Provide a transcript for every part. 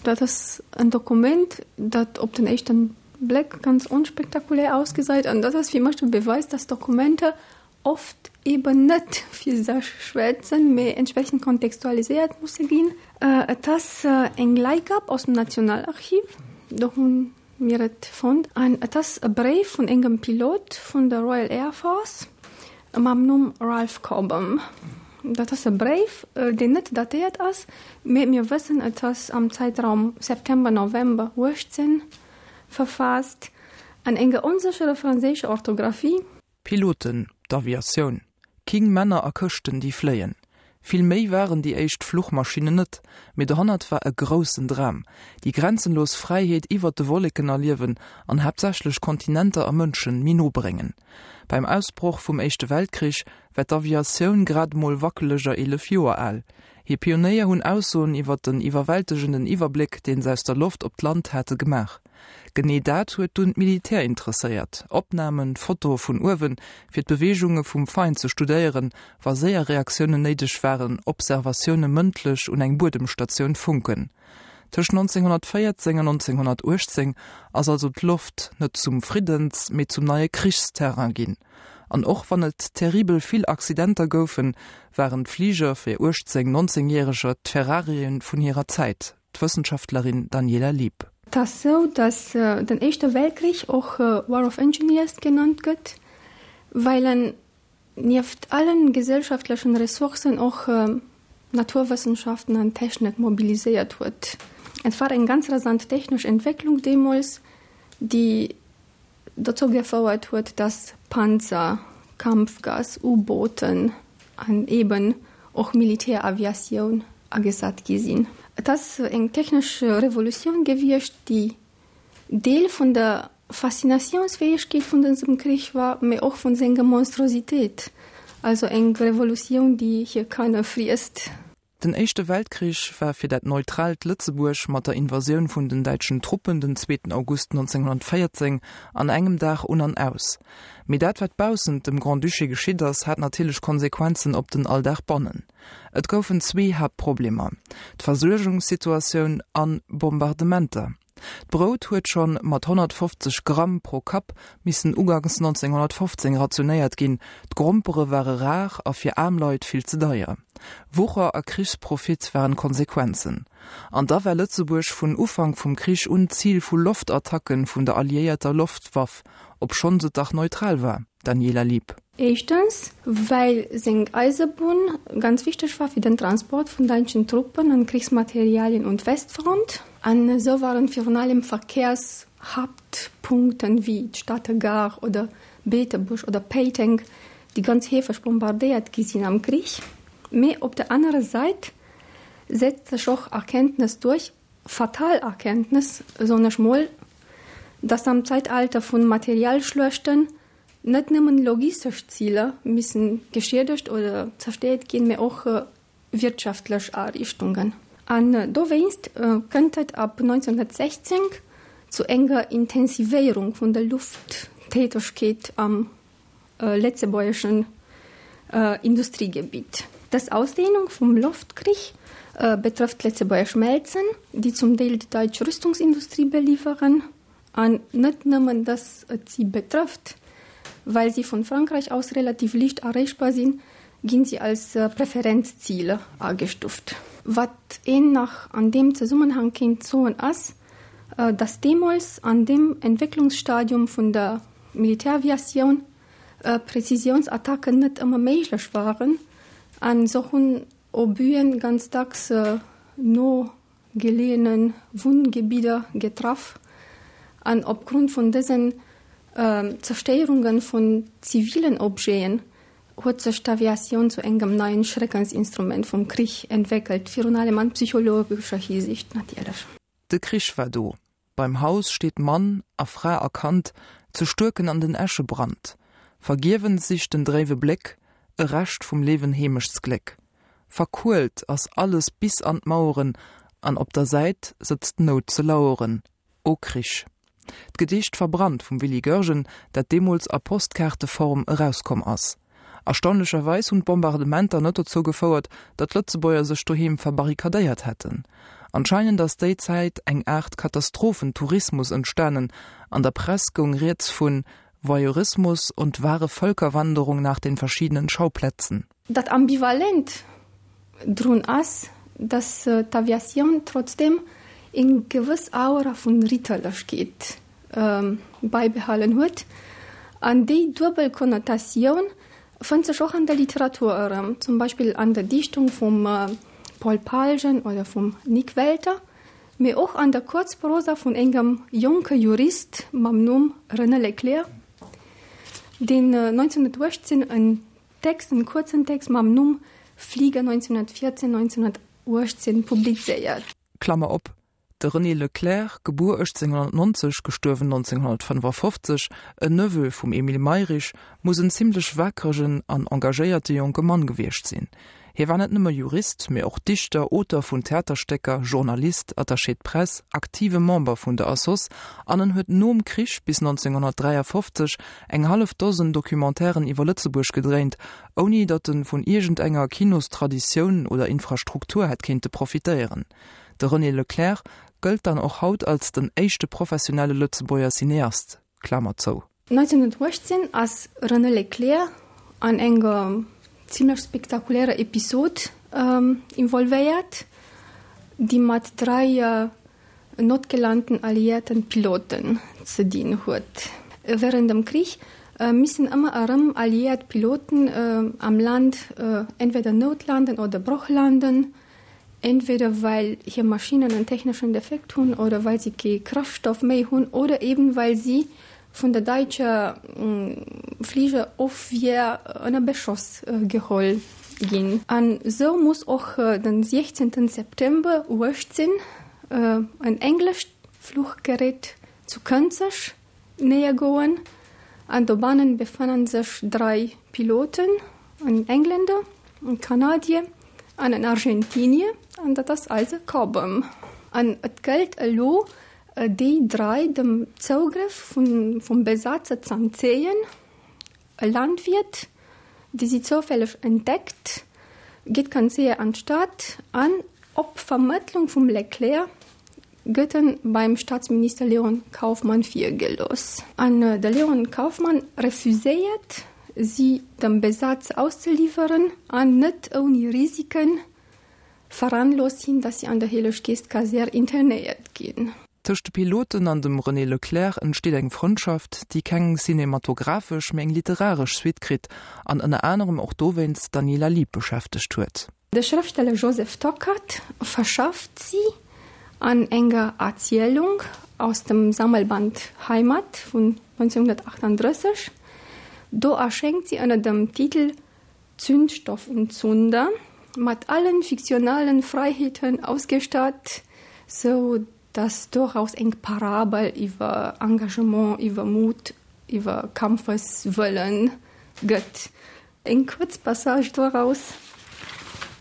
Dat ass en Dokument, dat op den éischten Bléck ganz onspektakulär ausgesäit. An dat ass fir mech de Beweis, dass Dokumenter oft eben net fir sech schwätzen, mee entsprechend kontextualiséiert musse ginn. Et ass eng Leihgab aus dem Nationalarchiv, do hu mir et fonnt. An et ass e Bréif vun engem Pilot vun der Royal Air Force mam Numm Ralph Cobham. Dat ass e Bréif, deen net datéiert ass, mee mir wëssen, et ass am Zäitraum September, November 18 verfaasst, an enger onsécherer franséischer Orthografie. Piloten, d'Aviatioun, king Männer a Këschten déi fléien. Vill méi waren déi éischt Fluchmaschinnen net, mee dohannert war e groussen Dram, déi grenzenlos Fräiheet iwwert de Wolleken erliewen an haaptsächlech Kontinenter a Mënschen méi no bréngen. Beim Ausbroch vum Éischte Weltkrich war d'Aviatioun grad emol wackeleger 11 Joer al. Hir Pionéier hunn Aussoen iwwer den iwwerwältegenden Iwwerbléck, deen se aus der Loft op d'Land hate gemaach. Genee dat huet dunn d'Militär interesséiert, Opnamen, Fotoe vun uewen, fir d'Beweegunge vum Feind ze studéieren, wa séier Reaktiounen néideg waren, Observatioune mëndlech un eng Buedemstatioun funken. Tëscht 1914 an 1918 ass also d'Loft net zum Friddens-, mee zum neie Krichsterrain ginn. An och wann et terribel vill Accidenter goufen, waren d'Fliger fir 18-, 19 Järeger d'Ferrarien vun hirer Zäit, d'Wëssenschaftlerin Daniela Lieb. Et ass sou, datt den Éischte Weltkrich och War of Engineers genannt gëtt, well en nieft allen gesellschaftlechen Ressourcen och Naturwëssenschaften an Technik mobiliséiert huet. Et war eng ganz rasant technesch Entwécklung deemools, déi dozou gefouert huet, dass Panzer, Kampfgas, U-Booten an eben och Militäraviatioun agesat gi sinn. Et ass eng technesch Revolutioun gewiescht, déi Deel vun der Faszinatiounsfäegkeet vun dësem Krich war, mee och vun senger Monstrositéit, also eng Revolutioun, déi hir Kanner friesst. Den Éischte Weltkrich war fir dat neutraalt Lëtzebuerg mat der Invasioun vun den däitschen Truppen den zweeten August 1914 an engem Dag un an aus. Mee dat wat baussent dem Grand-Duché geschitt ass, hat natierlech Konsequenzen op den Alldag bannen. Et goufen zwee Haaptproblemer, d'Versuergungssituatioun an Bombardementer. D'Brout huet schonn mat 150 Gramm pro Kapp missen uganks 1915 rationéiert ginn, d'Grompere ware rar a fir aarm Leit vill ze deier. Wucher a Krichsprofit waren d'Konsequenzen. An da war Lëtzebuerg vun Ufank vum Krich un Zil vu Loftattacken vun der alliéierter Loftwaff, obschonns et dach neutral war. Daniela Lieb. Éischtens, well seng Eisebunn ganz wichteg war fir den Transport vun däitschen Truppen an Krichsmaterialien un d'Westfront. An esou waren virun allem Verkehrshaaptpunkten wéi d'Stater Gare oder Beetebuerg oder Péiteng, déi ganz heefeg bombardéiert gi sinn am Krich. Mee op der anerer Säit setzt sech och Erkenntnes duerch, fatal Erkenntnes, soen ech mol, dass am Zäitalter vun Materialschluechten net nëmmen logistesch Ziler missen geschiedegt oder zerstéiert ginn, mee och wirtschaftlech Ariichtungen. An dowéinst kënnt et ab 1916 zu enger Intensivéierung vun der Lufttätegkeet am lëtzebuergeschen Industriegebitt. Dës Ausdehnung vum Loftkrich betrëfft d'lëtzebuergesch Schmelzen, déi zum Deel déi daitsch Rüstungsindustrie beliwweren. An net nëmmen, dass et si betrëfft, well si vun Frankräich aus relativ liicht erreechbar sinn, ginn si als Preferenzziler agestuft. Wat een nach an deem Zesummenhang kéint soen ass, dass deemools an deem Entwécklungsstadium vun der Militäraviatioun Präzisiounsattacken net ëmmer méiglech waren an esou hunn Obuen ganz dacks no geleeëne Wunngebidder getraff an opgrond vun dësen Zerstéierunge vun zivilen Objeten huet sech d'Aviatioun zu engem neien Schreckensinstrument vum Krich entwéckelt, virun allem an psychologescher Hisiicht natierlech. De Krich war do. Beim Haus steet Mann a Fra a Kand, ze stuerken an den Äschebrand. Vergiewens sicht den dréiwe Bléck e Rescht vum Leewen Heemechtsgléck. Verkuelt ass alles bis an d'Maueren, an op der Säit sëtzt d'Nout ze laueren. O Krich! D'Gedicht Verbrannt vum Willy Goergen, dat deemools a Postkaarteform erauskomm ass. Erstaunlecherweis hunn d'Bombardementer net dozou gefouert, datt d'Lëtzebuerger sech doheem verbarrikadéiert hätten. Anscheinend ass déi Zäit eng Aart Katastrophentourismus entstanen, an der Press goung rieds vun Voyeurismus und wahre Völkerwanderung nach den verschiedenen Schauplätzen. Dat Ambivalent drun ass, datt d'Aviatioun trotzdeem eng gewëss Aura vun Ritterlechkeet bäibehalen huet. An déi duebel Konnotatioun fënnt sech och an der Literatur erëm, zum Beispill an der Dichtung vum Paul Palgen oder vum Nik Welter, mee och an der Kuerzprosa vun engem jonke Jurist mam Numm René Leclère, deen 1918 en Text, en kuerzen Text mam Numm Flieger 1914, 1918 publizéiert. Klammer op, De René Leclère, gebuer 1890, gestuerwen 1955, en Neveu vum Emile Mayrisch, muss en zimmlech waakregen an engagéierte jonke Mann gewiescht sinn. Hie war net nëmme Jurist, mee och Dichter, Auteur vun Theaterstécker, Journalist, Attaché de presse, aktive Member vun der Assoss an en huet nom Krich bis 1953 eng hallef Dosen Documentairen iwwer Lëtzebuerg gedréint, ouni datt en vun iergendenger Kinostraditioun oder Infrastruktur hätt kéinte profitéieren. De René Leclère gëllt dann och haut als den éischte professionelle Lëtzebuerger Cineast. Klamer zou. 1918 ass René Leclère an enger zimlech spektakulärer Episod involvéiert, déi mat 3 notgelanten alliéierten Piloten ze dinn huet. Wärend dem Krich missen ëmmer erëm alliéiert Piloten am Land entweder noutlanden oder brochlanden, entweder well hir Maschinnen en techneschen Defekt hunn oder well si kee Kraftstoff méi hunn oder eben well si vun der däitscher Fligerofwier ënner Beschoss geholl ginn. An esou muss och den 16 September 18 en englescht Fluchgerät zu Kënzeg néiergoen an dobannen befannen sech 3 Piloten, en Engländer, en Kanadier an en Argentinier, an dat ass eise Cobham. An et gëllt elo déi 3 dem Zougrëff vum Besatzer z'entzéien. E Landwiert, dee si zoufälleg entdeckt, geet ganz séier an d'Stad an op Vermëttlung vum Leclerc gëtt en beim Staatsminister Léon Kaufmann virgelooss. An de Léon Kaufmann refuséiert, si dem Besatzer auszeliwweren an net ouni Risiken veranloosst hien, datt si an der Helleg-Geescht-Kasär internéiert ginn. Tëscht de Piloten an dem René Leclère entsteet eng Frëndschaft, déi keng cinematographesch, mee eng literaresch Suite kritt an ënner anerem och dowéinst d'Daniela Lieb beschäftegt huet. De Schrëftsteller Joseph Tockert verschafft si an enger Erzielung aus dem Sammelband Heimat vun 1938. Do erschéngt si ënner dem Titel Zündstoff und Zunder, mat allen fiktionalen Fräiheeten ausgestatt, sou dass doraus eng Parabel iwwer Engagement, iwwer Mut, iwwer Kampfeswëllen gëtt. Eng kuerz Passage doraus,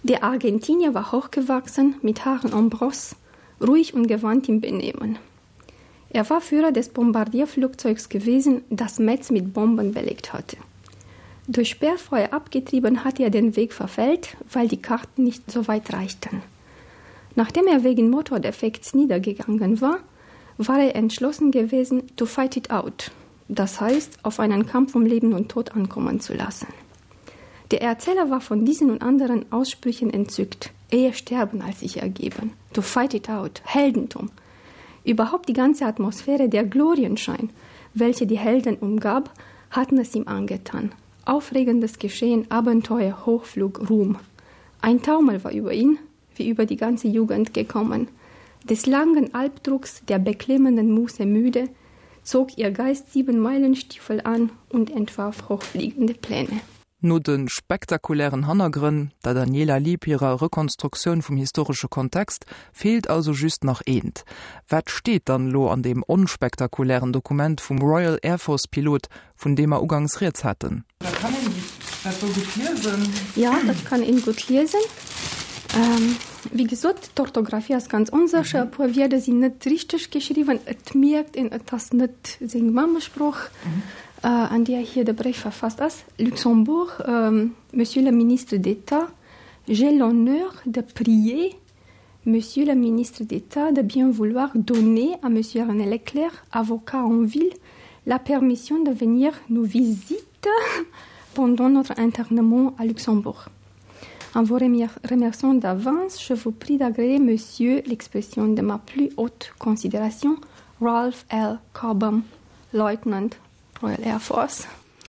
Der Argentinier war hochgewachsen, mit Haaren en brosse, ruhig und gewandt im Benehmen. Er war Führer des Bombardierflugzeugs gewesen, das Metz mit Bomben belegt hatte. Durch Sperrfeuer abgetrieben hatte er den Weg verfällt, weil die Karten nicht so weit reichten. Nachdem er wegen Motordefekts niedergegangen war, war er entschlossen gewesen, to fight it out, das heißt, auf einen Kampf um Leben und Tod ankommen zu lassen. Der Erzähler war von diesen und anderen Aussprüchen entzückt. Eher sterben als sich ergeben. To fight it out, Heldentum. Überhaupt die ganze Atmosphäre der Glorienschein, welche die Helden umgab, hatten es ihm angetan. Aufregendes Geschehen, Abenteuer, Hochflug, Ruhm. Ein Taumel war über ihn, wie über die ganze Jugend gekommen. Des langen Albdrucks der beklemmenden Muße müde, zog ihr Geist Siebenmeilenstiefel an und entwarf hochfliegende Pläne. No de spektakulären Hannergrënn, der Daniela Lieb hirer Rekonstruktioun vum historesche Kontext, feelt also just nach eent, Wat steet dann elo an deem onspektakulären Dokument vum Royal Air Force Pilot, vun deem mer ugangs rieds haten? Da kann een dat do gutt liesen. Jo, dat kann een gutt liesen. Wéi gesot, d'Orthographie ass ganz onsécher, e puer Wierder sinn net richteg geschriwwen. Et mierkt een, et ass net seng Mammesprooch. an deeër hie de Bréif verfasst ass, Luxembourg, Monsieur le Ministre d'État, j'ai l'honneur de prier Monsieur le Ministre d'État de bien vouloir donner à Monsieur René Leclerc, avocat en ville, la permission de venir nous visiter pendant notre internement à Luxembourg. En vous remerciant d'avance, je vous prie d'agréer Monsieur l'expression de ma plus haute considération, Ralph L. Cobham, Lieutenant Royal Air Force.